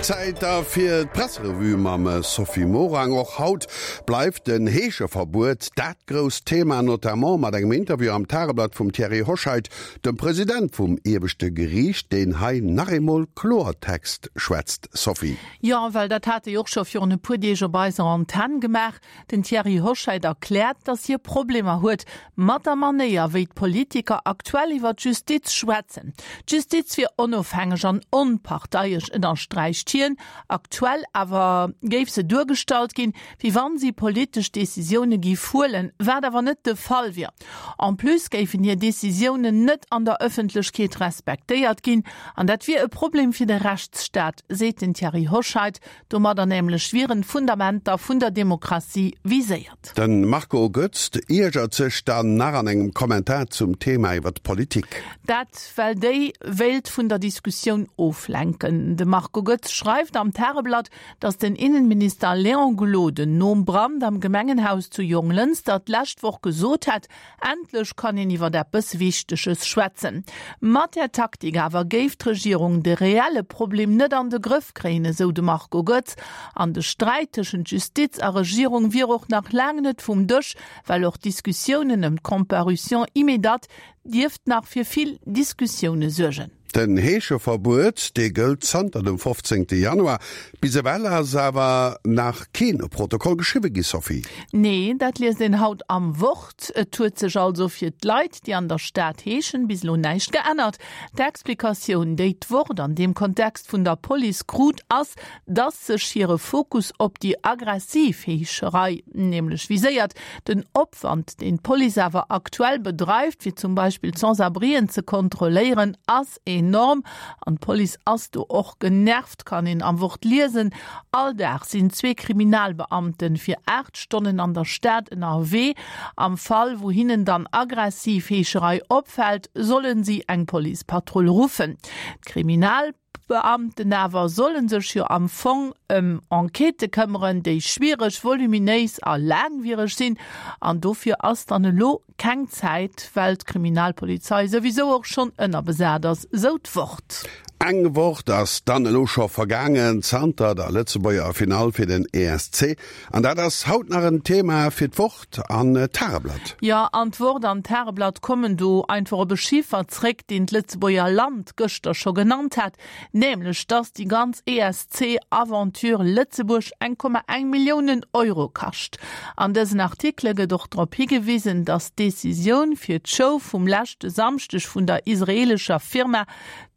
Zäit da fir d'Presserevue mam Sophie Morang. Och haut bleift den Heescheverbuet dat grousst Thema, notamment mat engem Interview am Tageblatt vum Thierry Hoscheit, dem President vum ieweschte Geriicht, deen hei nach eemol Kloertext schwätzt. Sophie. Jo, well dat hat e jo och scho virun e puer Deeg op eiser Antenn gemaach. Den Thierry Hoscheit erkläert, datt hie Problemer huet mat der Manéier, wéi d'Politiker aktuell iwwer d'Justiz schwätzen. D'Justiz wier onofhängeg an onparteiesch, ënnersträicht hien. Aktuell awer géif se duergestallt ginn, wéi wann si politesch Decisioune géif huelen, wat awer net de Fall wier. En plus géifen hir Decisiounen net an der Ëffentlechkeet respektéiert ginn, an dat wier e Problem fir de Rechtsstaat, seet den Thierry Hoscheit. Domadder nämlech wieren d'Fundamenter vun der Demokratie viséiert. De Marco Goetz iergert sech dann nach an engem Kommentar zum Thema iwwer d'Politik. Dat well déi wéilt vun der Diskussioun oflenken. De Marco Goetz schreift am Tageblatt, datt den Innenminister Léon Gloden nom Brand am Gemengenhaus zu Jonglënster d'lescht Woch gesot hätt, Endlech kann een iwwer eppes Wichteges schwätzen. Mat där Taktik awer géif d'Regierung de reelle Problem net an de Grëff kréien, esou de Marco Goetz. An de Sträit tëschent Justiz a Regierung wier och nach laang net vum Dësch, well och d'Diskussiounen ëm d'Comparution immédate dierft nach fir vill Diskussioune suergen. Den Heescheverbuet, dee gëllt zanter dem 15 Januar. Bis ewell ass awer nach keen Protokoll geschriwwe gi, Sophie. Nee, dat liest een haut am Wort. Et huet sech also fir d'Leit, déi an der Stad heeschen, bis elo näischt geännert. D'Explikatioun, déi d'Wort an deem Kontext vun der Police krut, ass, dass sech hire Fokus op déi aggressiv Heescherei nämlech viséiert. Den Opwand, deen d'Police awer aktuell bedreift, fir zum Beispill d'Sans-abrien ze kontrolléieren, ass enorm. An d'Police ass do och genervt, kann een am Wort liesen. All Dag sinn zwee Kriminalbeamten fir 8 Stonnen an der Stad ënnerwee. Am Fall, wou hinnen dann aggressiv Heescherei opfält, sollen si eng Policepatrull ruffen. D'Kriminal. D'Beamten awer solle sech jo am Fong ëm Enquêtë këmmeren, déi schwiereg, voluminéis a laangwiereg sinn. An dofir ass dann elo keng Zäit, well d'Kriminalpolizei souwisou och schonn ënnerbesat ass, sou d'Wort. Eng Woch ass dann elo scho vergaangen zanter der Lëtzebuerger Finall fir den ESC. An dat ass haut nach en Thema fir d'Wort an d'Tageblatt. Jo, an d'Wort an d'Tageblatt kommen do einfach op e Chiffer zréck, deen d'Lëtzebuerger Land gëschter scho genannt hat, nämlech dass déi ganz ESC-Aventure Lëtzebuerg 1,1 Milliounen Euro kascht. An dësen Artikele gëtt och drop higewisen, dass d'Decisioun fir d'Show vum leschte Samschdeg vun der israeelescher Firma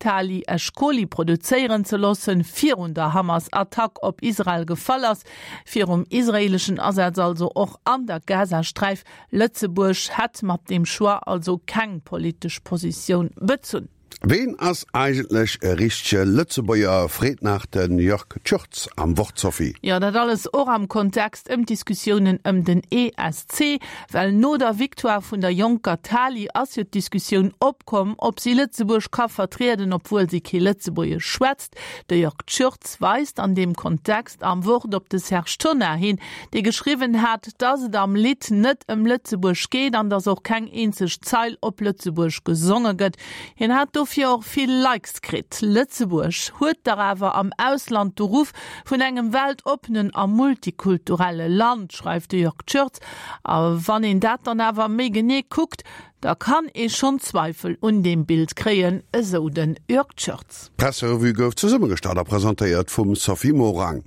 Tali Eshkoli produzéieren ze loossen, virun der Hamas-Attack op Israel gefall ass. Virum israeeleschen Asaz also och an der Gazasträif. Lëtzebuerg hätt mat deem Choix also keng politesch Positioun bezunn. Ween ass eigentlech e richtege Lëtzebuerger, freet nach de Jörg Tschurtz am Wort, Sophie. Jo, dat alles och am Kontext ëm d'Diskussiounen ëm den ESC, well no der Victoire vun der jonker Tali ass jo d'Diskussioun opkomm, ob si Lëtzebuerg ka vertrieden, obwuel si kee Lëtzebuergesch schwätzt. De Jörg Tschürtz weist an deem Kontext am Wort op de Serge Tonnar hin, dee geschriwwen hat, datt et am Lidd net ëm Lëtzebuerg geet an datt och keng eenzeg Zeil op Lëtzebuerg gesonge gëtt. Hien hat dofir och vill Likes kritt. Lëtzebuerg huet dach awer am Ausland de Ruff vun engem weltoppenen a multikulturelle Land, schreift de Jörg Tschürtz. A wann een dat dann awer méi genee kuckt, Da kann ee schonn Zweifel un deem Bild kréien, esou den Jörg Tschörtz. D'Presserevue gouf zesummegestallt a presentéiert vum Sophie Morang.